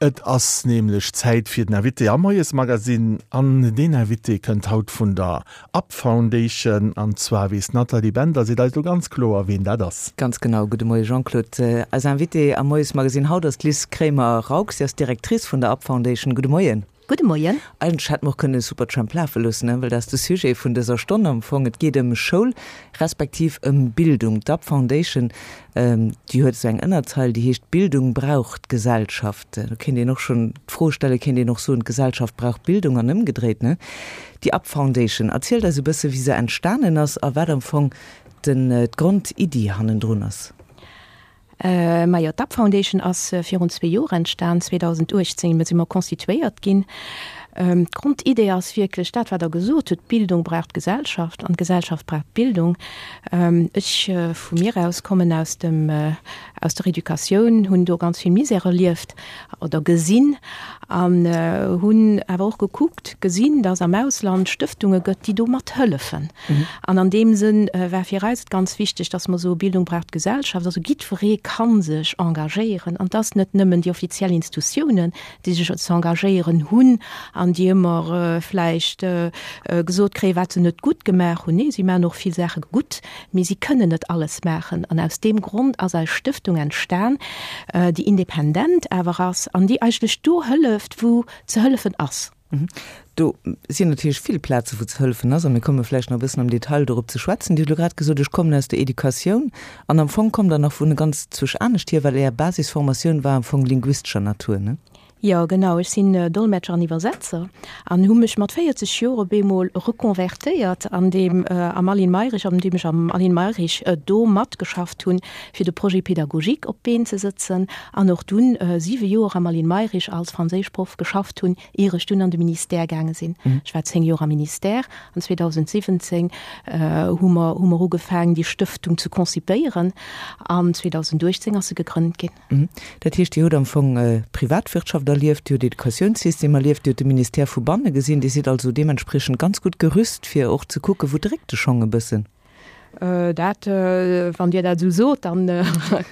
Et ass nämlech Zäit fir den Invité am Moiesmagazine an deen Invité kënnt haut vun der Up Foundation an zwar weess d'Nathalie Bender, seet eis elo ganz kloer ween dat ass. Ganz genau, gudde Moie Jean-Claude. Eis Invitée am Moiesmagazine haut ass d'Liz Kremer-Raux, si ass Directrice vun der Up Foundation. Gudde Moien. Gudde Moien. Eigentlech hätte mer och kënnen Supertramp lafe loossen, ne, well dat ass de Sujet vun dëser Stonn am Fong. Et geet ëm Schoul, respektiv ëm Bildung. D'Up Foundation, déi huet esou eng Ënnerzeil, déi heescht Bildung brauch d'Gesellschaft. Do kéint een och schonn d'Fro stellen, kéint een och soen, d'Gesellschaft brauch Bildung an ëmgedréit, ne? Déi Up Foundation, erzielt eis e bësse wéi se entstanen ass a wat am Fong den, d'Grondiddi hannendrun ass. Majo, d'Up Foundation ass virun zwee Joer entstan, 2018 si mer constituéiert ginn. D'Grondidee ass wierklech dat, wat Der gesot hutt, D'Bildung brauch d'Gesellschaft an d'Gesellschaft brauch d'Bildung. Ech vu mir aus kommen aus dem, aus der Educatioun, hunn do ganz vill Misère erlieft oder gesinn an hunn awer och gekuckt, gesinn, dass am Ausland Stëftunge gëtt, déi do mat hëllefen. An an deem Sënn war fir eis et ganz wichteg, dass mer soe Bildung brauch d'Gesellschaft. Also jiddweree ka sech engagéieren. An et ass net nëmmen déi offiziell Institutiounen, déi sech ze engagéieren hunn an déi ëmmer vläicht gesot kréien, wat se net gutt gemaach hunn. Nee, si maachen och vill Saache gutt, mee si kënnen net alles maachen. An aus deem Grond ass eis Stëftung entstan, déi independent awer ass an déi eigentlech do hëlleft, wou ze hëllefen ass. Do sinn natierlech vill Plaze wou ze hëllefen ass a mir komme vläicht nach e bëssen am Detail dorop ze schwätzen. Dir hutt elo grad gesot, ech kommen aus der Educatioun an am Fong kommt Der nach vun ganz zwousch anescht hier, well Är Basisformatioun war am Fong linguistescher Natur, ne? Jo, genau. Ech sinn Dolmetscher an Iwwersetzer an hu mech mat 40 Joer op eemol reconvertéiert an deem am Aline Mayrisch, an deem ech am Aline Mayrisch do matgeschafft hunn, fir de Projet pédagogique op d'Been ze sëtzen an och dunn siwe Joer am Aline Mayrisch als Franséischproff geschafft hunn, ier ech dunn an de Ministère gaange sinn. Ech war 10 Joer am Ministère an 2017 hu mer hu mer ugefaangen, déi Stëftung ze concipéieren an 2018 ass se gegrënnt ginn. Dat heescht, Dir hutt am Fong d'Privatwirtschaft erlieft, Dir hutt Educatiounssystem erlieft, Dir hutt de Ministère vu banne gesinn. Dir sidd also deementspriechend ganz gutt gerüst, fir och ze kucken, wou dréckt de Schong e bëssen. Dat, wann Dir dat esou sot, dann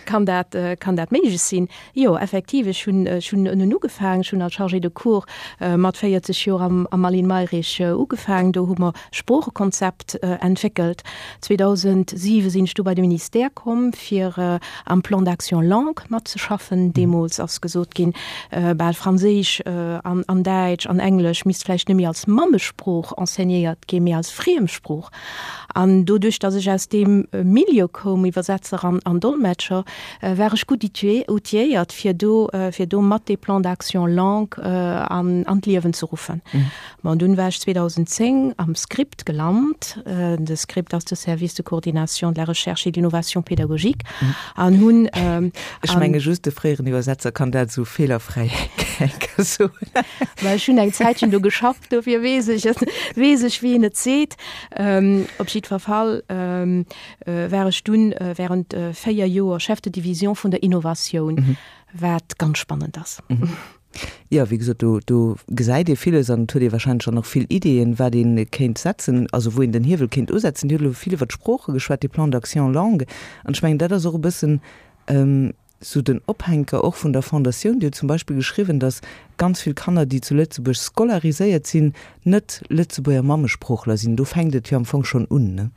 kann dat, kann dat méiglech sinn. Jo, effektiv, ech hunn, ech hunn ënnen ugefaangen. Ech hunn als Chargée de cours mat 40 Joer am, am Aline Mayrisch ugefaangen. Do hu mer Sproochekonzept entwéckelt. 2007 sinn ech du bei de Ministère komm, fir am Plan d'action langues matzeschaffen. Deemools ass gesot ginn, bal Franséisch an, an Däitsch an Englesch misst vläicht net méi als Mammesprooch enseignéiert ginn, mee als Friemsprooch. An doduerch, datt ech aus deem Milieu koum, Iwwersetzer an, an Dolmetscher, war ech gutt outilléiert, fir do, fir do mat dee Plan d'action langue an, an d'Liewen ze ruffen. Bon, dunn war ech 2010 am Script gelant. De Script ass de Service de coordination de la recherche et de l'innovation pédagogique an hunn. Ech menge just de fréieren Iwwersetzer kann dat esou feelerfräi soen. Well ech hunn eng Zäitchen do geschafft. Dofir weess ech et, weess ech wéi een et seet. Op jiddwer Fall war ech dunn während 4 Joer Chef de Division vun der Innovatioun, wat ganz spannend ass. Jo, wéi gesot, do, do gesäit ee villes an et huet ee wahrscheinlech dann och vill Ideeën, wat ee kéint setzen, also wou een den Hiewel kéint usetzen. Dir hutt elo vill iwwer d'Sprooche geschwat, de Plan d'action langue, an ech mengen, dat ass och e bëssen, Sou den Ophänker och vun der Fondatioun. Dir hutt zum Beispill geschriwwen, datt ganz vill Kanner, déi zu Lëtzebuerg scolariséiert sinn, net Lëtzebuerger Mammesproochler sinn. Do fänkt et jo am Fong schonn un, ne?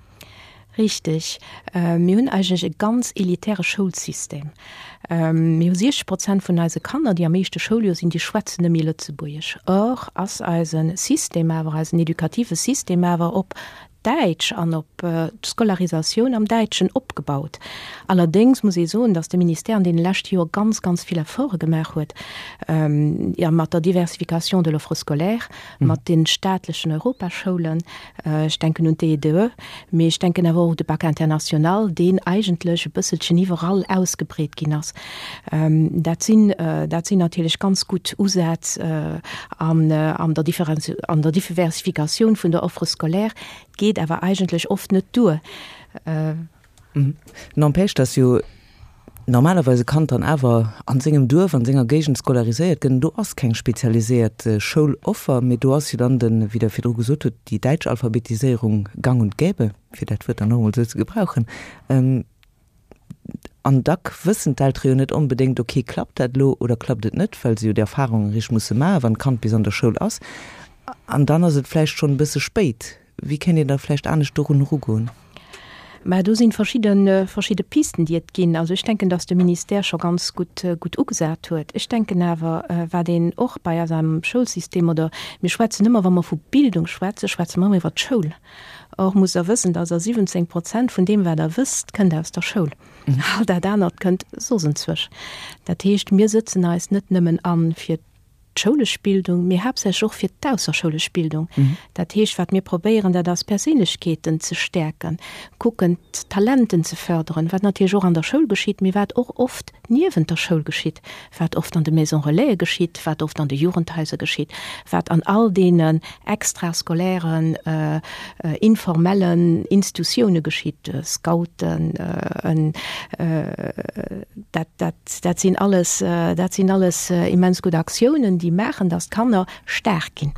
Richteg. Mir hunn eigentlech e ganz elitäre Schoulsystem. Mir hu 60 Prozent vun eise Kanner, déi am éischte Schouljoer sinn, déi schwätzen net méi Lëtzebuergesch. Or ass eise System awer, eisen edukative System awer op Däitsch an op d'Scolarisatioun am Däitschen opgebaut. Allerdéngs muss ee soen, datt de Ministère an deene leschte Joer ganz, ganz vill Efforte gemaach huet, jo mat der Diversification de l'offre scolaire, mat de staatlechen Europaschoulen, ech denken un d'EEDE, mee ech denken awer och u de Bac international, deen eigentlech e bësselchen iwwerall ausgebreet ginn ass. Dat sinn, dat sinn natierlech ganz gutt Usätz an der an der Diversifikatioun vun der Offre scolaire, geet awer eigentlech oft net duer. N'empêche, dass jo normalerweis e Kand dann awer a sengem Duerf, a senger Géigend scolariséiert gëtt. Do ass keng spezialiséiert Schouloffer, mee do ass jo dann den, wéi Der virdru gesot hutt, déi däitsch Alphabetiséierung gang und gäbe, fir dat Wuert dann och emol esou ze gebrauchen. An dack wëssen d'Eltere jo net onbedéngt, ok, klappt dat elo oder klappt et net, well se jo déi Erfahrung eréischt musse maachen, wann d'Kand bis an der Schoul ass. An dann ass et vläicht schonn e bësse spéit. Wéi kéint een da vläicht anescht dorun erugoen? Mä do si verschidde, verschidde Pisten, déi et ginn. Also ech denken, datt de Ministère scho ganz gutt, gutt ugesat huet. Ech denken awer, wat een och bei eis am Schoulsystem, oder mir schwätzen ëmmer, wa mer vu Bildung schwätzen, schwätze mer ëmmer iwwert d'Schoul. Or musst Der wëssen, dass Der 17 Prozent vun deem, wat Der wësst, kënnt aus der Schoul. All dat anert kënnt soss enzwousch. Dat heescht, mir sëtzen eis net nëmmen an fir d'schoulesch Bildung, mee haaptsächlech och fir d'ausserschoulesch Bildung. Dat heescht, wat mir probéieren, dat ass, Perséinlechkeeten ze stäerken, kucken, d'Talenten ze förderen, wat natierlech och an der Schoul geschitt, mee wat och oft niewent der Schoul geschitt, wat oft an de Maisons Relaisen geschitt, wat oft an de Jugendhaiser geschitt, wat an all deenen extrascolairen, informellen Institutioune geschitt, Scouten, dat, dat, dat sinn alles, dat sinn alles immens gutt Aktiounen, déi maachen, dass d'Kanner staark ginn.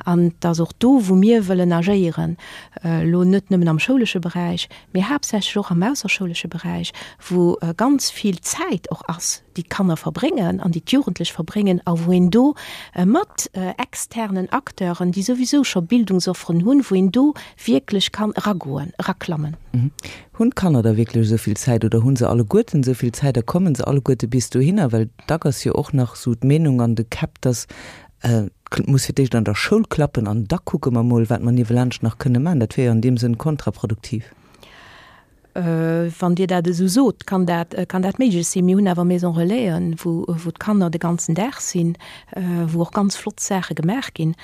An et ass och do, wou mir wëllen agéieren, elo net nëmmen am schoulesche Beräich, mee haaptsächlech och am ausserschoulesche Beräich, wou ganz vill Zäit och ass, déi d'Kanner verbréngen an déi d'Jugendlech verbréngen a wou een do mat externen Acteuren, déi souwisou scho Bildungsofferen hunn, wou een do wierklech kann eragoen, eraklammen. Hunn d'Kanner da wierklech esou vill Zäit oder hu se alleguerten esou vill Zäit a komme se alleguerte bis dohinner? Well dack ass jo och nach esou d'Meenung an de Käpp, dass Et muss fir d'éischt an der Schoul klappen an da kucke mer mol, wat mer niewelaanscht nach kënne maachen. Dat wier jo an deem Sënn kontraproduktiv. Wann Dir dat esou sot, kann dat, kann dat méiglech sinn. Mir hunn awer Maison Relaisen, wou, wou d'Kanner de ganzen Dag sinn, wou och ganz flott Saache gemaach ginn.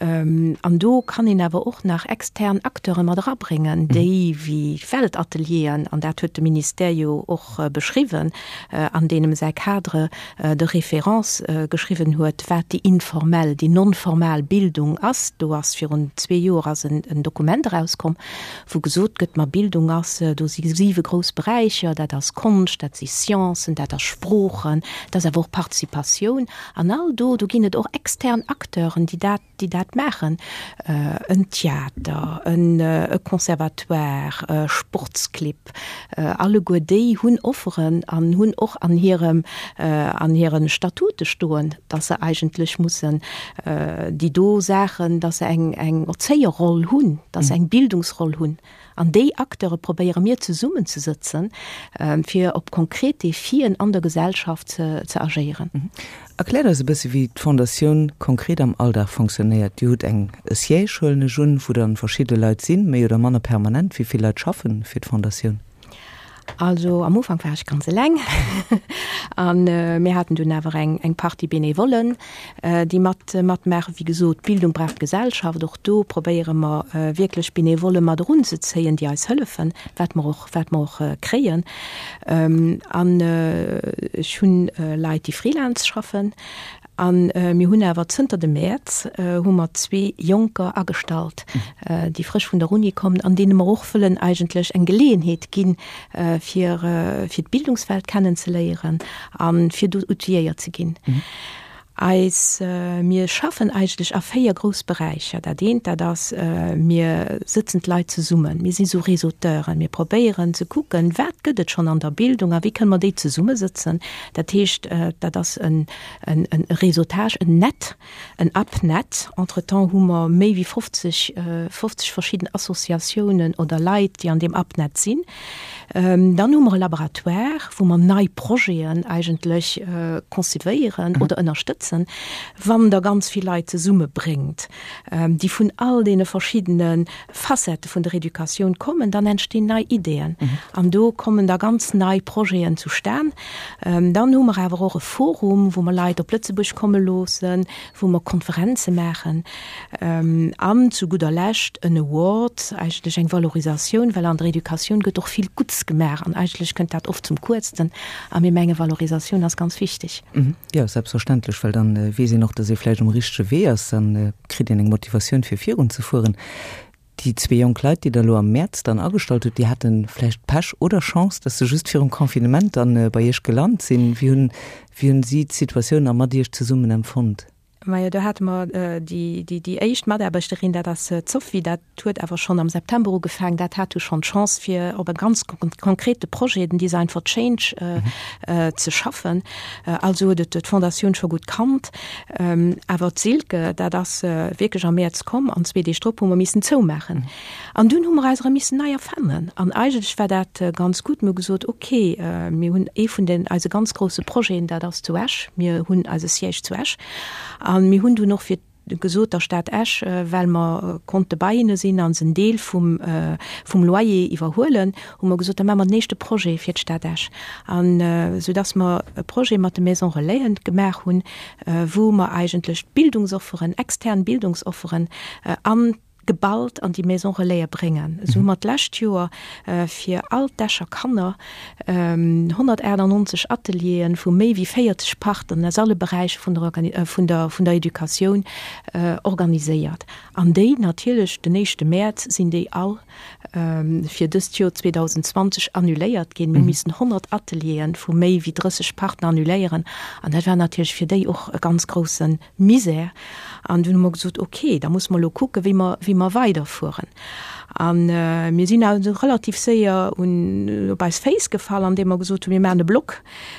An do kann een awer och nach extern Acteure mat erabréngen, déi wéi Weltatelieren, an dat huet de Ministère jo och beschriwwen an deemem säi Cadre de référence geschriwwen huet, wat déi informell, déi non-formal Bildung ass. Do ass virun zwee Joer ass en Dokument erauskomm, wou gesot gëtt, ma Bildung ass, do si siwe grouss Beräicher, dat ass Konscht, dat si Sciencen, dat ass Sproochen, dat ass awer och Participatioun. An all do, do ginn et och extern Acteuren, déi dat, déi dat maachen, en Theater, e Conservatoire, Sportsclibb, alleguer déi hunn Offeren an hunn och an hirem, an hire Statute stoen, dass se eigentlech mussen déi do Saachen, dass se eng, eng Erzéierroll hunn, dass se eng Bildungsroll hunn. An déi Acteure probéiere mir zesummenzesëtzen, fir op konkret Defien an der Gesellschaft ze agéieren. Erkläert eis e bësse wéi d'Fondatioun konkret am Alldag fonctionnéiert. Dir hutt eng e Siège, huelen ech un, wou dann verschidde Leit sinn, méi oder manner permanent. Wéi vill Leit schaffen fir d'Fondatioun? Also am Ufank war ech ganz eleng an mir haten dunn awer eng eng Partie Benevollen, déi mat matmaachen. Wéi gesot, Bildung brauch d'Gesellschaft. Och do probéiere mer wierklech Benevolle mat erunzezéien, déi eis hëllefen, wat mer och wat mer och kréien. An ech hunn Leit, déi Freelance schaffen. A mir hunn awer zënter dem Mäerz hu mer zwee Jonker agestallt, déi frësch vun der Uni kommen an deene mer och wëllen eigentlech eng Geleeënheet ginn, fir fir d'Bildungswelt kennenzeléieren a fir do outilléiert ze ginn. Eis, mir schaffen eigentlech a véier grouss Beräicher. Dat eent, dat ass, mir sëtzen d'Leit zesummen, mir si sou Réseauteuren, mir probéieren ze kucken, wat gëtt et schonn an der Bildung a wéi kënne mer déi zesummesëtzen. Dat heescht, dat ass en Réseautage, en Net, en UpNet. Entretemps hu mer méi wéi 50, 50 verschidden Associatiounen oder Leit, déi an deem UpNet sinn. Dann hu mer e Laboratoire, wou mer nei Projeten eigentlech concevéieren oder ënnerstëtzen, wann Der ganz vill Leit zesummebréngt, déi vun all deene verschiddene Facettë vun der Educatioun kommen, dann entstinn nei Ideeën an do kommen da ganz nei Projeten zustan. Dann hu mer awer och e Forum, wou mer Leit op Lëtzebuerg komme loossen, wou mer Konferenze maachen an zu gudder Lescht en Award, eigentlech eng Valorisatioun, well an der Educatioun gëtt och vill Gutts gemaach an eigentlech kënnt dat oft zum Kuerzten a mir menge Valorisatioun ass ganz wichteg. Jo, selbstverständlech, well dann weess een och, dass ee vläicht um richtege Wee ass, dann kritt een eng Motivatioun fir virunzefueren. Déi zwee jonk Leit, déi Der elo am Mäerz dann agestallt hutt, déi hate vläicht Pech oder Chance, dass se just virum Confinement dann bei Iech gelant sinn. Wéi hunn, wéi hunn si d'Situatioun a mat Iech zesummen empfonnt? Majo, do hate mer déi, déi, déi éischt Mataarbechterin, dat ass d'Sophie, dat huet awer schonn am September ugefaangen. Dat hat du schonn d'Chance, fir op e ganz konkrete Projet, den Design for Change, ze schaffen. Also huet et d'Fondatioun scho gutt kannt. Awer d'Silke, dat ass wierklech am Mäerz komm an zwee Deeg drop hu mer missen zoumaachen. An dunn hu mer eis erëm missen nei erfannen. An eigentlech war dat ganz gutt. Mir hu gesot, okay, mir hunn ee vun den eise ganz grousse Projeten, dat ass zu Esch. Mir hunn eise Siège zu Esch. A mir hunn dunn och fir gesot der Stad Esch, well mer konnte bei hinne sinn a se en Deel vum vum Loyer iwwerhuelen, hu mer gesot, da maache mer den éischte Projet fir d'Stad Esch. An soudass mer e Projet mat de Maisons Relaisen gemaach hunn, wou mer eigentlech d'Bildungsofferen, extern Bildungsofferen an geballt an déi Maison Relaie bréngen. Esou hu mer d'lescht Joer fir all d'Escher Kanner 198 Ateliere vu méi wéi 40 Partneren aus alle Beräicher vun der vun der vun der Educatioun organiséiert. An déi natierlech den éischte Mäerz sinn déi all fir dëst Joer 2020 annuléiert ginn. Mir hu missen 100 Ateliere vu méi wéi 30 Partner annuléieren an dat war natierlech fir déi och e ganz grousse Misär. An dunn hu mer gesot, ok, da musse mer elo kucken, wéi mer, wéi mer weiderfueren. A mir sinn also relativ séier un, op eis Féiss gefall, andeem mer gesot hunn, mir maachen e Blog,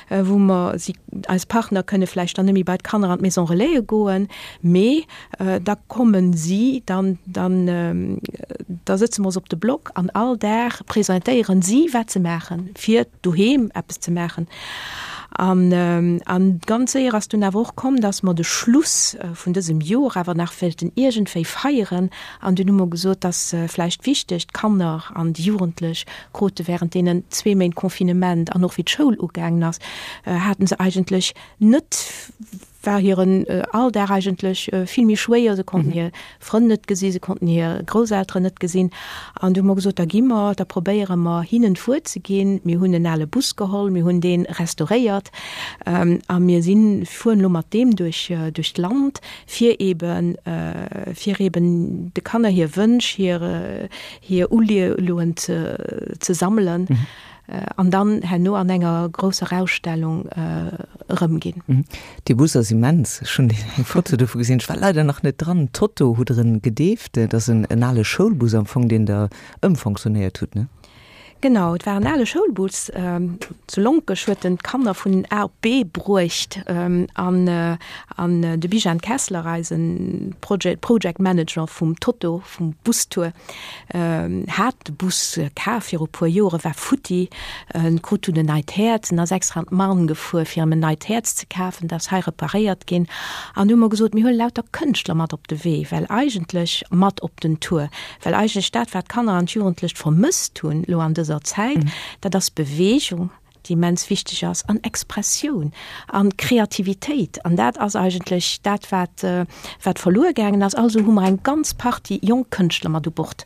wou mer si, eis Partner kënne vläicht dann net méi bei d'Kanner an d'Maison Relaise goen, mee da kommen si, dann, dann, da sëtze mer ons op de Blog an all Dag presentéieren si, wat se maachen, fir doheem eppes ze maachen. An, an ganz séier ass dunn awer och komm, dass mer de Schluss vun dësem Joer awer nach wéilten iergendwéi feieren. An dunn hu mer gesot, dass vläicht wichteg, d'Kanner an déi Jugendlech krute während deenen zwee Méint Confinement an och wéi d'Schoul ugaangen ass, haten se eigentlech net, war hiren Alldag eigentlech vill méi schwéier. Se konnten hir Frënn net gesinn, se konnten hir Grousselteren net gesinn. An du hu mer gesot, da gi mer, da probéiere mer hinnen d'Wuert ze ginn. Mir hunn en ale Bus geholl, mir hunn dee restauréiert a mir sinn, fueren elo mat deem duerch, duerch d'Land, fir eben, fir eben de Kanner hir Wënsch, hir, hir Uleeën ze, ze sammelen. An dann herno an enger grousser Ausstellung erëmginn. Dee Bus ass immens. Ech hunn eng Foto dovu gesinn. Ech war leider nach net dran. Toto hutt Der en gedeeft. Dat ass en ale Schoulbus am Fong, deen Der ëmfonctionnéiert hutt, ne? Genau, et war en ale Schoulbus. Zu Lonkech huet en d'Kanner vun A op B bruecht. An de Bijan Kessler, eise Project Manager vum Toto, vum Bustour, Hat de Bus kaf viru puer Joren, war futti, en krut dunn en neit Häerz, en ass extra an d'Marne gefuer fir em en neit Häerz ze kafen, dat ass hei reparéiert ginn. An du hu mer gesot, mir huele lauter Kënschtler mat op de Wee, well eigentlech mat op den Tour, well eigentlech dat wat d'Kanner an d'Jugendlecht vermësst hunn elo an dëser Zäit, dat ass Beweegung. déi immens wichteg ass, an Expressioun an Kreativitéit. An dat ass eigentlech dat, wat, wat verluer gaangen ass. Also hu mer eng ganz Partie jonk Kënschtler mat u Bord.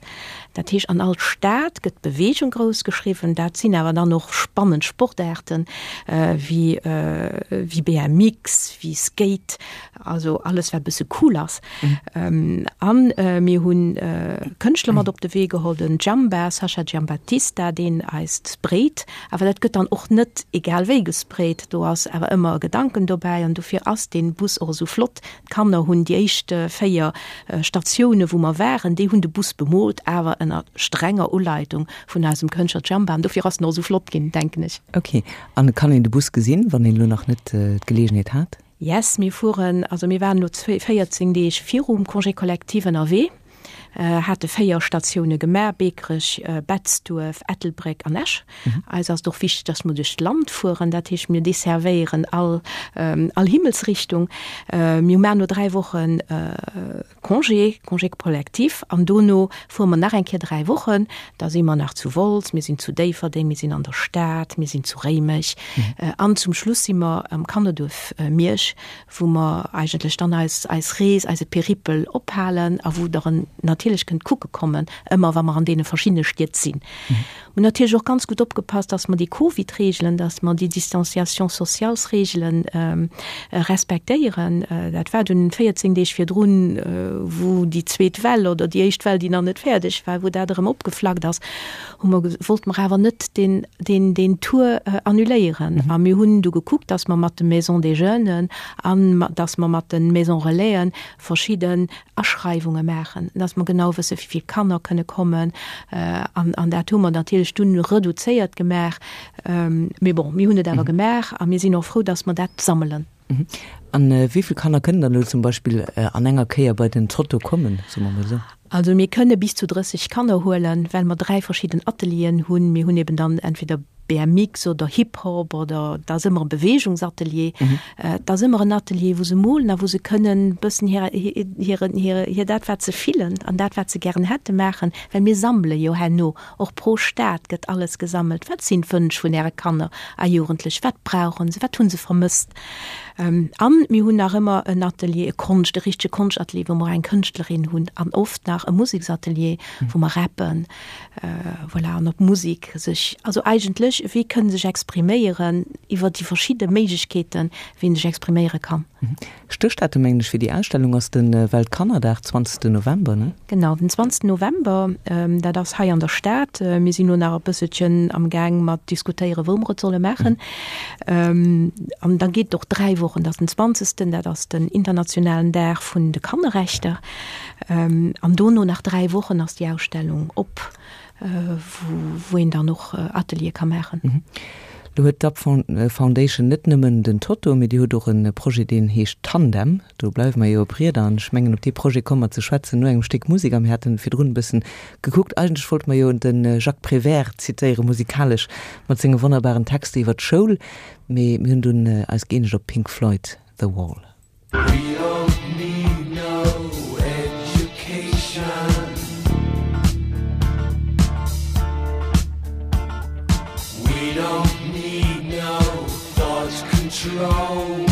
Dat heescht, an all Stad gëtt Beweegung grouss geschriwwen. Dat sinn awer dann och spannend Sportaarten, wéi, wéi BMX, wéi Skate, also alles, wat e bësse cool ass. A mir hu Kënschtler mat op de Wee geholl, den Giamba, Sascha Giambattista, deen eis sprayt. Awer dat gëtt dann och net egal wéi gesprayt, do ass awer ëmmer e Gedanken dobäi an dofir ass dee Bus och esou flott. D'Kanner hunn déi éischt 4 Statioune wou mer waren, déi hunn de Bus bemoolt, awer ënner strenger Uleitung vun eisem Kënschtler Giamba an dofir ass en och esou flott ginn, denken ech. Ok, an kann een de Bus gesinn, wann een elo nach net d'Geleegenheet hat? Yes, mir fueren, also mir waren elo 14 Deeg virum Congé collectif ënnerwee. Hate 4 Statioune gemaach, Beekerech, Betzdduerf, Ettelbréck an Esch. Eis ass et och wichteg, dass mer duerch d'Land fueren, dat heescht mir desservéieren all all Himmelsrichtung. Mir maachen no 3 Wochen Congé, Congé collectif, an dono fuere mer nach eng Kéier 3 Wochen. Da si mer nach zu Wolz, mir sinn zu Déifferdeng, mir sinn an der Stad, mir sinn zu Réimech an zum Schluss si mer am Kannerduerf Miersch, wou mer eigentlech dann eis eis Rees, eise Peripel ophalen a wou der en natierlech. natierlech kënnt kucke kommen, ëmmer wa mer an deene verschiddene Stied sinn. Mir hunn natierlech och ganz gutt opgepasst, dass mer déi Covid-Reegelen, dass mer déi Distanciation sociales-Reegelen respektéieren. Dat war dunn 14 Deeg virdrun, wou déi zweet Well oder déi éischt Well, déi nach net fäerdeg war, wou dat erëm opgeflackt ass, hu mer, wollte mer awer net deen, deen, deen Tour annuléieren. A mir hunn du gekuckt, dass mer mat de Maisons des Jeunes an dass mer mat de Maisons Relaisen verschidden Aschreiwunge maachen, dass mer genau wësse wéi vill Kanner kënne kommen. An, an dat hu mer natierlech dunn reduzéiert gemaach. Mee bon, mir hunn et awer gemaach a mir sinn och frou, dass mer dat sammelen. An wéi vill Kanner kënnen dann elo zum Beispill an enger Kéier bei den Zotto kommen, soe mer mol esou? Also mir kënne bis zu 30 Kanner huelen, well mer 3 verschidden Atelieren hunn. Mir hunn eben dann entweder BMX oder Hip-Hop oder et ass ëmmer e Beweegungsatelier. Et ass ëmmer en Atelier, wou se molen a wou se kënnen e bëssen hir, hiren, hir, hir dat wat se fillen an dat wat se gären hätte maachen, well mir sammele jo herno och pro Stad gëtt alles gesammelt. Wat sinn d'Wënsch vun Äre Kanner a Jugendlech? Wat brauchen se? Wat hu se vermësst? An mir hunn nach ëmmer en Atelier, e Konscht, e richtege Konschtatelier, wou mer eng Kënschtlerin hunn an oft nach e Museksatelier, wou mer rappen, voilà, an op Musek sech, also eigentlech, wéi kënne sech expriméieren iwwer déi verschidde Méiglechkeeten, wéi een sech expriméiere kann. Stéchdatum, mengen ech, fir déi Ausstellung ass de Weltkannerdag, 20 November, ne? Genau, den 20 November, dat ass hei an der Stad. Mir sinn elo nach e bësselchen am Gaang mat diskutéieren, wou mer et solle maachen. An da geet et och 3 Wochen, dat ass den 20., dat ass den internationalen Dag vun de Kannerrechter. An dono nach 3 Wochen ass déi Ausstellung op. wou een dann och Ateliere ka maachen. Lo huet d'Up Foundation net nëmmen den Totto, mee Dir hutt och e Projet, deen heescht Tandem. Do bleiwe mer jo op Rieder an ech mengen, op dee Projet komme mer ze schwätzen no engem Stéck Musek. A mir haten virdrun e bëssen gekuckt, eigentlech wollte mer jo de Jacques Prévert zitéiere musikalesch mat senge wonnerbaren Texter iwwer d'Schoul, mee mir hunn dunn eis gëeenegt op Pink Floyd, The Wall. We don't need no education. We don't need no thought control.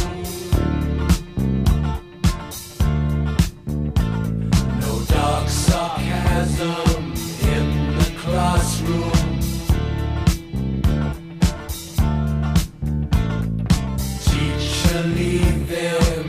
No dark sarcasm in the classroom. Teacher leave there.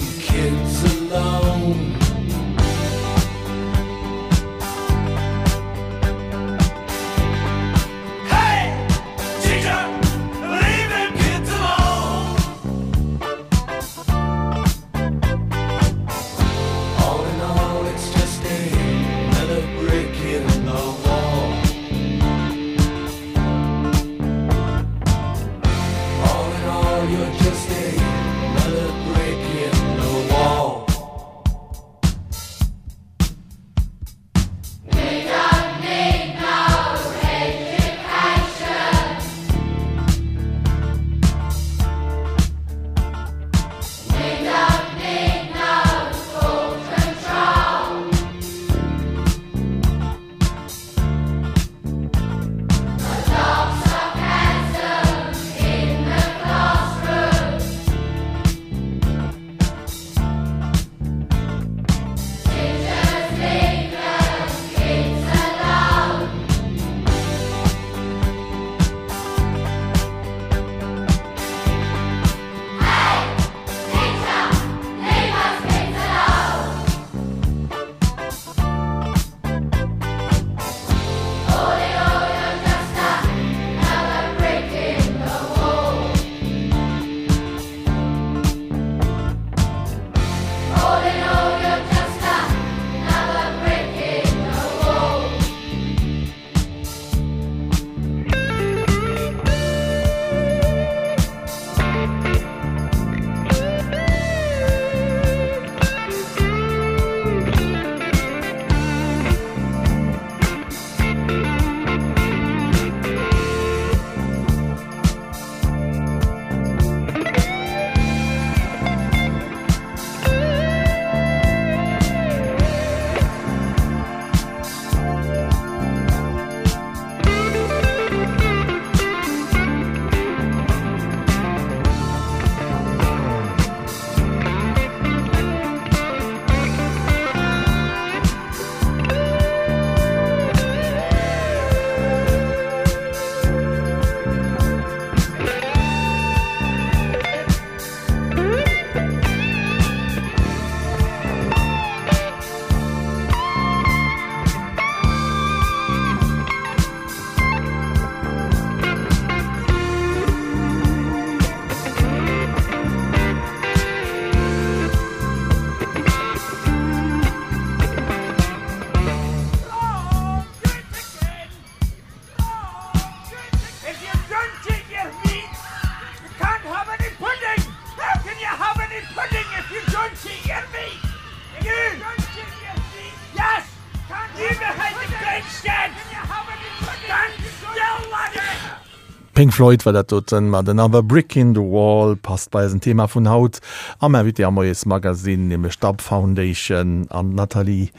Pink Floyd war dat doten mat Another Brick in the Wall. Passt bei eisen Thema vun haut am Invité am Moiesmagazine, nämlech d'Up Foundation an d'Nathalie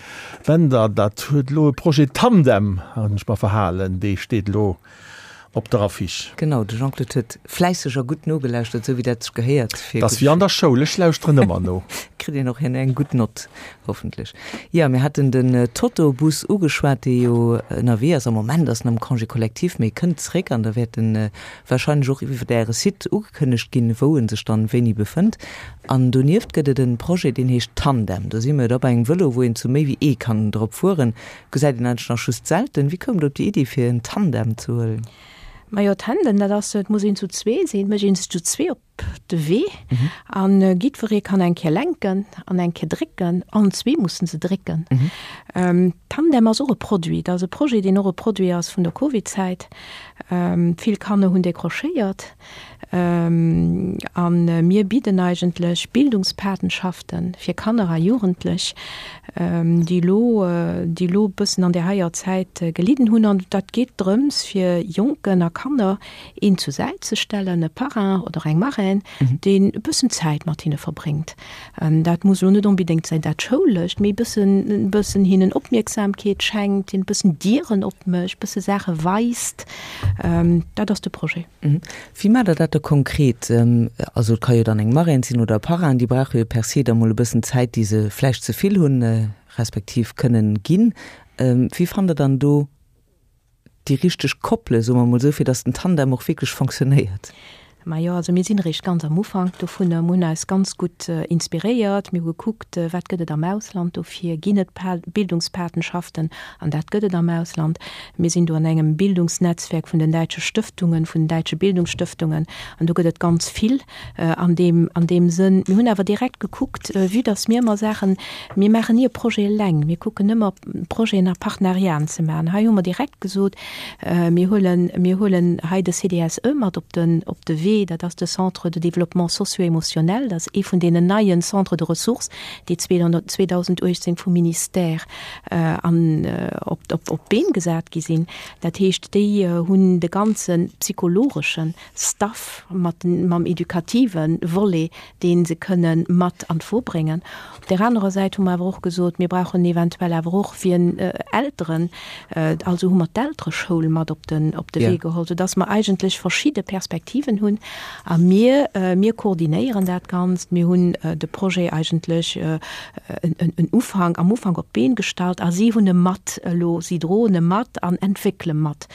Bender. Dat huet elo e Projet Tandem, hunn ech mer verhalen, dee steet elo op der Affiche. Genau, de Jean-Claude huet fläisseg a gutt nogelauschtert, esou wéi dat sech gehéiert fir. Dat ass wéi an der Schoul, ech lauschteren ëmmer no. Kritt een och herno eng gutt Nott, hoffentlech. Jo, mir haten den Totobus ugeschwat, dee jo ënnerwee ass. Am Moment ass en am Congé collectif, mee kënnt zréck an da wäert en warscheinlech och iwwer Äre Site ugekënnegt ginn, wou en sech dann wéini befënnt. An donieft gëtt et en Projet, deen heescht Tandem. Do si mir da bei engem Vëlo, wou een zu méi wéi ee kann drop fueren. Gesäit een eigentlech nach just selten. Wéi koum der op déi Iddi fir en Tandem ze huelen? Majo, Tandem, dat ass, et muss een zu zwee sinn, et mécht een sech zu zwee op de Wee an jiddweree kann eng Kéier lenken an eng Kéier drécken, allen zwee mussen se drécken. Tandem ass och e Produit, dat ass e Projet, deen och e Produit ass vun der Covid-Zäit. Vill Kanner hunn décrochéiert. A mir bidden eigentlech Bildungspatenschaften fir Kanner a Jugendlech, déi elo, déi elo e bëssen an där heier Zäit gelidden hunn. An dat geet drëms, fir Jonken a Kanner een zur Säit ze stellen, e Parrain oder eng Marraine, deen e bëssen Zäit mat hinne verbréngt. Dat muss elo net onbedéngt säin dat Schoulescht, mee e bëssen, e bëssen hinnen Opmierksamkeet schenkt, hinnen e bëssen Dieren opmécht, e bësse Saache weist. Dat ass de Projet. Wéi maacht Der dat da konkret? Also et ka jo dann eng Marraine sinn oder e Parrain, déi brauche jo per se da mol e bëssen Zäit, déi se vläicht ze vill hunn, respektiv kënnen ginn. Wéi fannt Der dann do déi richteg Koppele, soe mer mol esou, fir datt den Tandem och wierklech fonctionnéiert? Majo, also mir sinn eréischt ganz am Ufank dovunner. Mir hunn eis ganz gutt inspiréiert. Mir hu gekuckt, wat gëtt et am Ausland dofir? Ginn et Bildungspatenschaften? An dat gëtt et am Ausland. Mir sinn do an engem Bildungsnetzwerk vun den däitsche Stëftungen, vun den däitsche Bildungsstëftungen, an do gëtt et ganz vill an deem, an deem Sënn. Mir hunn awer direkt gekuckt, vue dass mir ëmmer Saachen, mir maachen ni e Projet eleng, mir kucken ëmmer Projeten a Partenariaten ze maachen. Hei hu mer direkt gesot, mir huelen, mir huelen hei de CDSE mat op den, op de Wee, dat ass de Centre de développement socio-émotionnel, dat ass ee vun deenen neien Centres de ressources, déi 2018 vum Ministère an op op d'Been gesat gi sinn. Dat heescht, déi hunn de ganze psychologesche Staff mat mam edukative Volet, dee se kënne mat an d'Wo bréngen. Op där anerer Säit hu mer awer och gesot, mir brauchen eventuell awer och wien Elteren, also hu mer d'Eltereschoul mat op den op de Wee geholl, soudass mer eigentlech verschidde Perspektiven hunn. A mir, mir koordinéieren dat Ganzt. Mir hunn de Projet eigentlech en Ufank, am Ufank op d'Been gestallt a si hunn e mat elo, si droen e mat an entwéckele mat.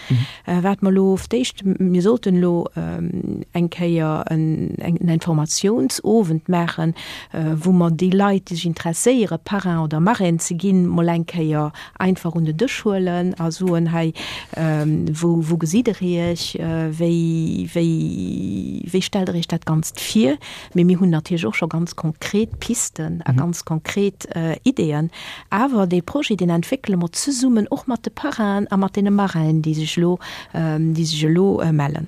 Wat mer elo auf d'éischt, mir sollten elo eng Kéier en Informatiounsowend maachen, wou mer déi Leit, déi sech interesséieren, Parrain oder Marraine ze ginn, mol eng Kéier einfach un den Dësch huelen a soen, hei, wou, wou gesitt Der Iech, wéi, wéi, wéi stellt Der Iech dat Ganzt vir? Mee mir hunn natierlech och scho ganz konkret Pisten a ganz konkret Ideeën. Awer dee Projet, deen entwéckele mer zesummen och mat de Parrainen a mat deene Marrainen, déi sech elo, déi sech elo mellen.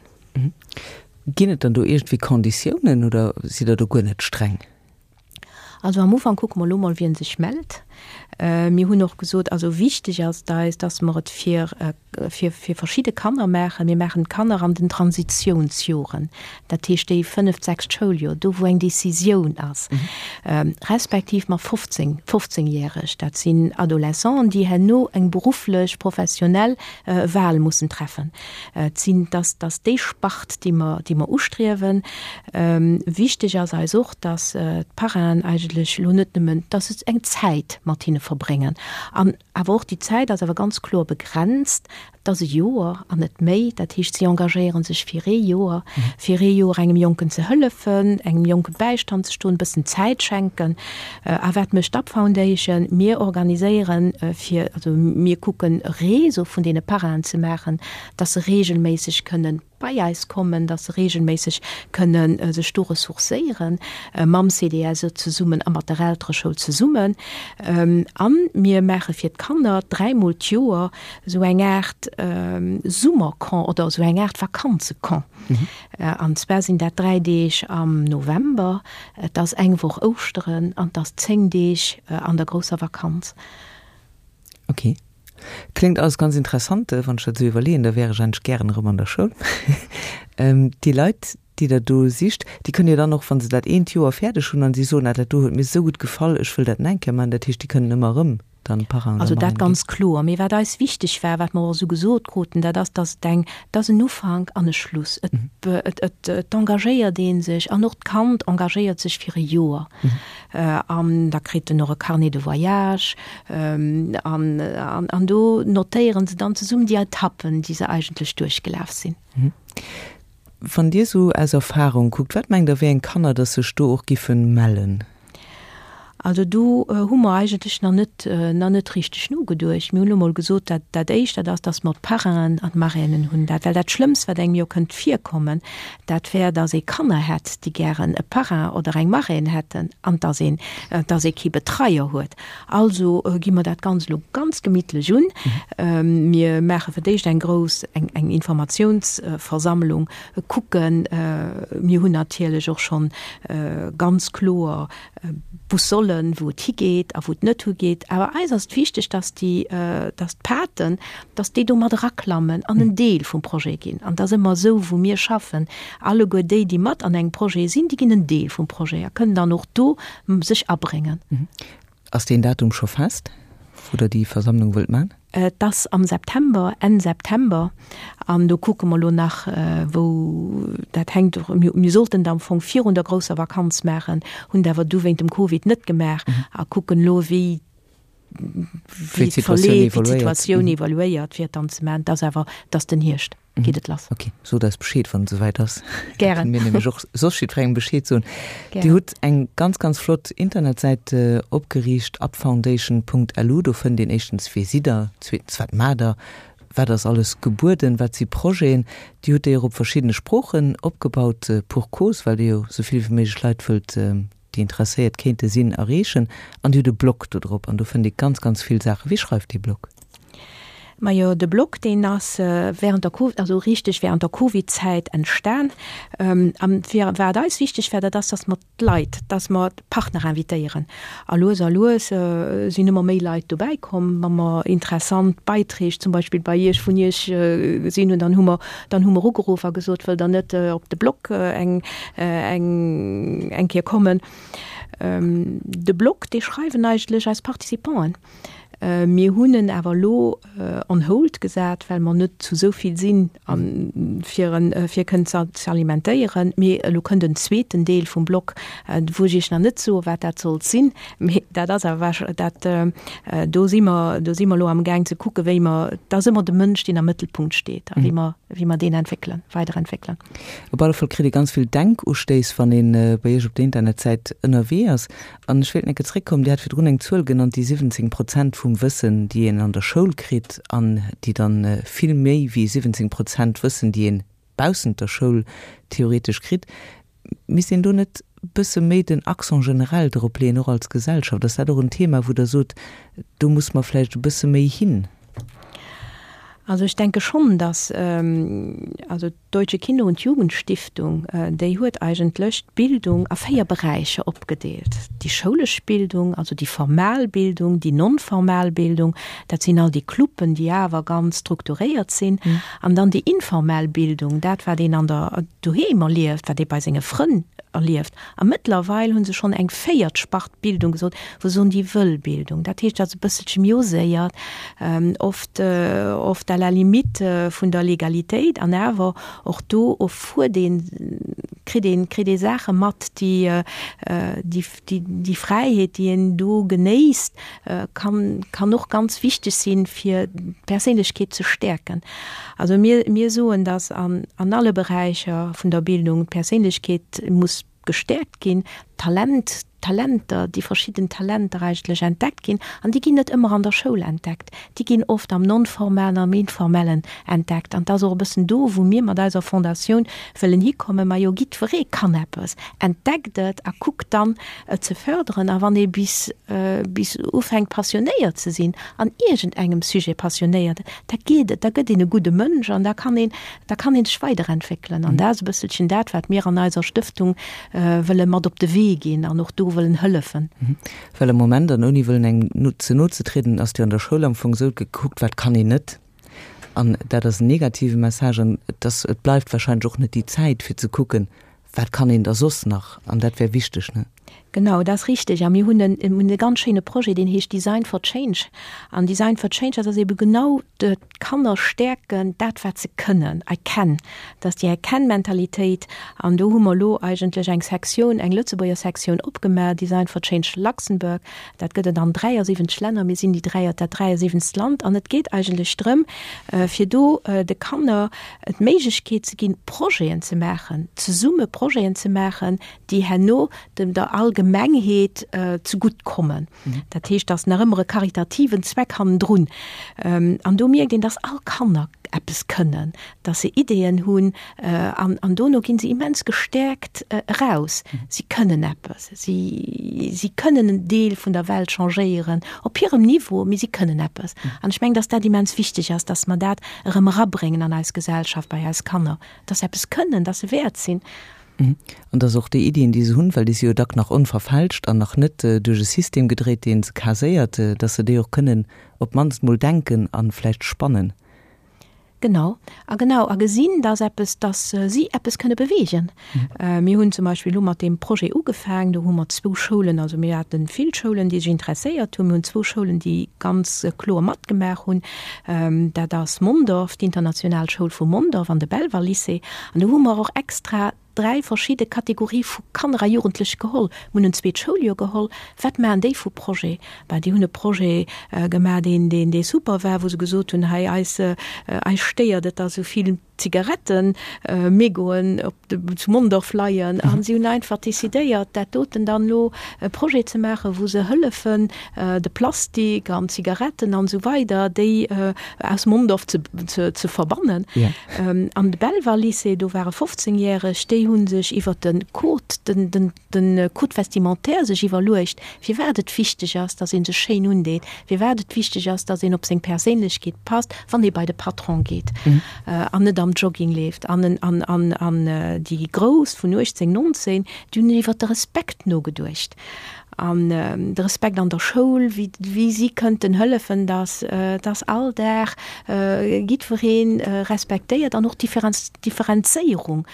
Ginn et dann do iergendwéi Konditiounen oder sidd Der do guer net streng? Also am Ufank kucke mer elo mol, wien sech mellt. Mir hunn och gesot, also wichteg ass et eis, dass mer et fir, fir, fir verschidde Kanner maachen. Mir maachen d'Kanner an den Transitionsjoren, dat heescht déi fënneft, sechst Schouljoer, do wou eng Décisioun ass, respektiv mat 15, fofzéngjäreg, dat sinn Adolescenten, déi herno eng berufflech, professionell Wahl mussen treffen. Et sinn, dass, dass déi Spart, déi mer, déi mer ustriewen. Wichteg ass eis och, dass d'Parrainen eigentlech elo net nëmmen, dass se eng Zäit mat hinne verbréngen an awer och déi Zäit ass awer ganz kloer begrenzt, et ass e Joer an net méi. Dat heescht, si engagéiere sech fir ee Joer, fir ee Joer engem Jonken ze hëllefen, engem Jonke Bäistand ze stoen, e bëssen Zäit schenken. A wat mécht d'Up Foundation? Mir organiséieren fir, also mir kucken e Réseau vun deene Parrainen ze maachen, dass se reegelméisseg kënnen bei eis kommen, dass se reegelméisseg kënne sech do ressourcéieren, mam CDSE zesummen a mat der Eltereschoul zesummen. A mir maache fir d'Kanner dräimol d'Joer esou eng Aart Summercamp oder esou eng Aart Vakanzecamp. An zwar sinn dat 3 Deeg am November, et ass eng Woch Ouschteren an et ass 10 Deeg an der grousser Vakanz. Ok. Kléngt alles ganz interessant. Wann ech dat esou iwwerleeën, da wär ech eigentlech gären erëm an der Schoul. Déi Leit, déi Der do sicht, déi kënnen jo dann och, wa se dat eent Joer fäerdeg hunn an si soen, ah dat do huet mir esou gutt gefall, ech wëll dat nach eng Kéier maachen, dat heescht, déi kënnen ëmmer erëm dann Parrain oder Also dat Marraine ginn. ganz kloer. Mee wat eis wichteg war, wat mer och esou gesot kruten, dat ass, dass et eng, et ass en Ufank an e Schluss. Et, et, et, et engagéiert ee sech an och d'Kand engagéiert sech fir e Joer. An da kritt en och e Carnet de voyage an, an, an do notéiere se dann zesummen déi Etappen, déi se eigentlech duerchgelaf sinn. Wann Dir esou aus Erfahrung kuckt, wat mengt Der, wéi eng Kanner dass sech do och giffen mellen? Also do hu mer eigentlech nach net, nach net richteg nogeduecht. Mir hunn elo mol gesot, dat, dat Éischt, dat ass, dass mer d'Parrainen an d'Marrainen hunn. Dat, well dat Schlëmmst, wat engem jo kënnt virkommen, dat wär, dass ee Kanner hätt, déi gären e Parrain oder eng Marraine hätten an dass een, dass ee kee Betreier huet. Also gi mer dat Ganzt elo ganz gemittlech un. Mir maache fir d'éischt eng grouss, eng, eng Informatiounsversammlung, kucken. Mir hunn natierlech och schonn ganz kloer Boussollen, wou et higeet a wou et net higeet. Awer eis ass et wichteg, dass déi, dass d'Paten, dass déi do mat eraklammen an en Deel vum Projet ginn. An et ass ëmmer esou, wou mir schaffen, alleguer déi, déi mat an engem Projet sinn, déi ginn en Deel vum Projet a kënnen dann och do sech abréngen. Ass deen Datum scho fest, wou Der déi Versammlung wëllt man? Et ass am September, Enn September. An do kucke mer elo nach, wou dat hänkt. Mir sollten et am Fong virun der grousser Vakanz maachen, hunn et awer du wéint dem Covid net gemaach a kucken elo, wéi wéi d'Situatioun evoluéiert, fir et dann ze maachen. Et ass awer, et ass den Hierscht. Geet et lass. Ok, sot eis Bescheed, wann et esouwäit ass. Gären. Mir nämlech och soss jiddwerengem Bescheed soen. Dir hutt eng ganz, ganz flott Internetsäit opgeriicht, upfoundation.lu. Do fënnt een éischtens, wie sidd Der, zweetens, wat maacht Der, wat ass alles gebueden, wat si Projeten. Dir hutt déi och op verschiddene Sproochen opgebaut, pour cause, well Dir jo esou vill wéi méiglech Leit wëllt déi interesséiert kéinte sinn, erreechen. An Dir hutt e Blog do drop an do fënnt ee ganz, ganz vill Saachen. Wie schreift dee Blog? Majo, de Blog, deen ass während der Covid, also richteg während der Covid-Zäit entstan. An fir wat eis wichteg war, dat ass, dass mer d'Leit, dass mer d'Partner invitéieren. A lues a lues sinn ëmmer méi Leit dobäi komm, wa mer interessant Beiträg zum Beispill bei Iech, vun Iech gesinn hunn, dann hu mer, dann hu mer ugeruff a gesot, wëllt Der net op de Blog eng, eng, eng Kéier kommen? De Blog, dee schreiwen eigentlech eis Participanten. Mir hunn en awer elo on hold gesat, well mer net zu esou vill sinn, fir en fir kënnen ze alimentéieren. Mee elo kënnt en zweeten Deel vum Blog, wou ech Iech nach net soe wat dat sollt sinn. Mee dat ass awer dat, do si mer, do si mer elo amgaang ze kucken, wéi mer, et ass ëmmer de Mënsch, deen am Mëttelpunkt steet a wéi mer, wéi mer deen entwéckelen, weiderentwéckelen. Op alle Fall kritt ee ganz vill Denkustéiss, wann ee bei Iech op der Internetsäit ënnerwee ass. An ech wéilt enke zréckkommen, Dir hat virdrun eng Zuel genannt, déi 17 Prozent vum Wëssen, déi een an der Schoul kritt an déi dann vill méi wéi 17 Prozent Wëssen, déi een baussent der Schoul theoretesch kritt. Misst een do net bësse méi den Accent generell drop leeën, och als Gesellschaft? Ass dat och en Thema, wou Der sot, do muss mer vläicht e bësse méi hin? Also ech denke schonn, dass, also D'Deutsche Kinder und Jugendstiftung, déi huet eigentlech d'Bildung a 4 Beräicher opgedeelt, déi schoulesch Bildung, also déi formal Bildung, déi non-formal Bildung, dat sinn all déi Cluben, déi awer ganz strukturéiert sinn, an dann déi informell Bildung, dat wat een an der doheem erlieft, wat ee bei senge Frënn erlieft. A mëttlerweil hu se schonn eng véiert Spart Bildung gesot, wou se soen, déi wëll Bildung. Dat heescht, dat ass e bësselche méi oséiert, oft, oft à la limite vun der Legalitéit. An awer och do erfuert een, kritt een, kritt ee Saache mat, déi, déi, déi Fräiheet, déi een do genéisst, kann, kann och ganz wichteg sinn, fir d'Perséinlechkeet ze stäerken. Also mir, mir soen, dass an, an alle Beräicher vun der Bildung d'Perséinlechkeet muss gestäerkt ginn, d'Talent, d'Talenter, déi verschidden Talenter eigentlech entdeckt ginn. An déi ginn net ëmmer an der Schoul entdeckt, déi ginn oft am Non-formalen, am Informellen entdeckt. An et ass och e bëssen do, wou mir mat eiser Fondatioun wëllen hikommen, Majo, jiddweree kann eppes, entdeckt et a kuckt dann, et ze förderen. A wann ee bis, bis ufänkt passionéiert ze sinn, an iergendengem Sujet passionéiert, da geet et, da gëtt een e gudde Mënsch an da kann een, da kann ee sech weiderentwéckelen. An dat ass e bësselchen dat, wat mir an eiser Stëftung wëlle mat op de Wee ginn an och do wëllen hëllefen. Well am Moment, an ouni wëllen engem ze no ze trieden, ass et jo an der Schoul am Fong esou, et gëtt gekuckt, wat kann een net. An dat ass en negative Message an et ass, et bleift wahrscheinlech och net déi Zäit fir ze kucken, wat kann een da soss nach? An dat wär wichteg, ne? Genau, dat ass richteg. A mir hunn en, hunn e ganz schéine Projet, deen heescht Design for Change. An Design for Change, dat ass ebe genau d'Kanner stäerken, dat wat se kënnen, I can, dat ass déi I can-Mentalitéit. An do hu mer elo eigentlech eng Sektioun, eng Lëtzebuerger Sektioun opgemaach, Design for Change Luxembourg. Dat gëtt et an 73 Länner. Mir sinn déi 3, dat 73. Land. An et geet eigentlech drëm, fir do de Kanner d'Méiglechkeet ze ginn, Projeten ze maachen, zesumme Projeten ze maachen, déi herno dem der Allgemengheet zegutt kommen. Dat heescht, dass nach ëmmer e karitativen Zweck hannendrun. An do mierkt een, dass all Kanner eppes kënnen, dass se Ideeën hunn an, an dono ginn se immens gestäerkt eraus. Si kënnen eppes, si, si kënnen en Deel vun der Welt changéieren, op hirem Niveau, mee si kënnen eppes. An ech mengen, dass dat immens wichteg ass, dass mer dat erëm erabréngen an eis Gesellschaft, bei eis Kanner, dass se eppes kënnen, dass se wäert sinn. An dass och déi Iddien, déi se hunn, well déi si jo dack nach onverfälscht an nach net duerch e System gedréit, dee se caséiert, dass se déi och kënnen op d'mannst mol denken a vläicht spannen. Genau. A genau, a gesinn, dass eppes, dass si eppes kënne beweegen. Mir hunn zum Beispill elo mat deem Projet ugefaangen, do hu mer zwou Schoulen, also mir hate vill Schoulen, déi sech interesséiert hunn, mir hunn zwou Schoulen, déi ganz kloer matgemaach hunn, dat ass Mondorf, d'international Schoul vu Mondorf an de Belval-Lycée. An do hu mer och extra dräi verschidde Kategorie vu Kanner a Jugendlech geholl. Mir hunn en zweet Schouljoer geholl. Wat maachen déi vu Projet? Ben, déi hunn e Projet gemaach, deen, deen, dee super war, wou se gesot hunn, hei eis, eis stéiert et, dass esou vill Zigarettemégoen op de, zu Mondorf leien. A si hunn einfach decidéiert, dat doten dann elo e Projet ze maachen, wou se hëllefen, de Plastik an d'Zigaretten an esou weider, déi aus Mondorf ze, ze, ze verbannen. An de Belval-Lycée, do ware 15 Järeg, déi hu sech iwwer de Code, den, den, de Code vestimentaire sech iwwerluecht, firwat et wichteg ass, datt ee sech schéin undeet, firwat et wichteg ass, datt een op seng Perséinlechkeet passt, wann ee bei de Patron geet an net am Jogging leeft. An, an, an, an déi Grouss vun 18, 19, déi hunn iwwer de Respekt nogeduecht. An de Respekt an der Schoul, wéi, wéi si kënnten hëllefen, dass, dass all Dag jiddweree respektéiert an och d'Differenz, d'Differenzéierung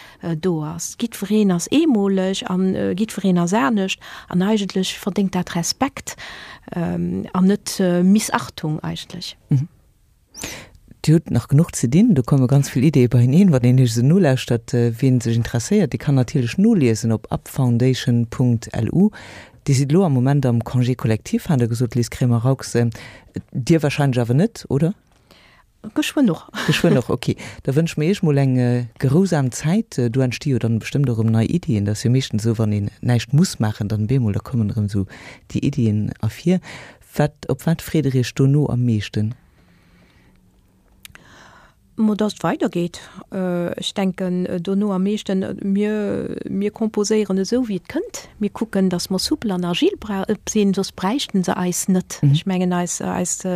do ass. Jiddwereen ass eemoleg an jiddwereen ass anescht an eigentlech verdéngt dat Respekt an net Missachtung eigentlech. Dir hutt nach genuch ze dinn, do komme ganz vill Ideeë beieneen, wann een Iech esou nolauschtert. Wien sech interesséiert, dee kann natierlech noliesen op upfoundation.lu. Dir sidd elo am Moment am Congé collectif, hat Der gesot, Liz Cremer-Raux. Dir warscheinlech awer net, oder? Geschwënn och. Geschwënn och, ok. Da wënsche mir Iech mol eng gerousam Zäit. Do entsti jo dann bestëmmt och erëm nei Iddien. Dat ass jo meeschtens esou, wann een näischt muss maachen, dann bemol, da kommen erëm esou déi Iddien ervir. Wat, op wat freet Der Iech dono am meeschten? Mo dass et weidergeet. Ech denken dono am meeschten, mir, mir composéieren esou wéi et kënnt. Mir kucken, dass mer soupel an agil sinn, soss bräichten se eis net. Ech mengen eis, eis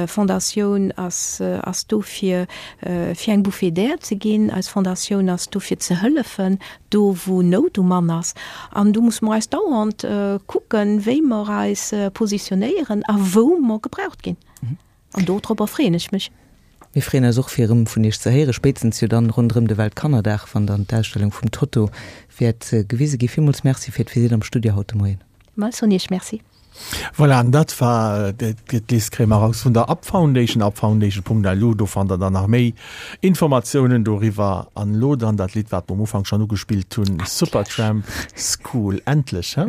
Fondatioun ass, ass do fir, fir eng Bouffée d'air ze ginn. Eis Fondatioun ass do fir ze hëllefen, do wou Nout um Mann ass. An do musse mer eis dauernd kucken, wéi mer eis positionéieren a wou mer gebraucht ginn. An dodropper freeën ech mech. Mir freeën eis och fir erëm vun Iech ze héieren, spéitstens jo dann ronderëm de Weltkannerdag, wann dann d'Ausstellung vum Toto wäert gewise ginn. Villmools Merci fir d'Visitt am Studio haut de Moien. Mä ech soen Iech Merci. Voilà, an dat war d'Liz Cremer-Raux vun der Up Foundation, upfoundation.lu. Do fannt der dann nach méi Informatiounen doriwwer. An elo dann dat Lidd, wat mer um Ufank schonn ugespillt hunn, Supertramp, School. Endlech, he?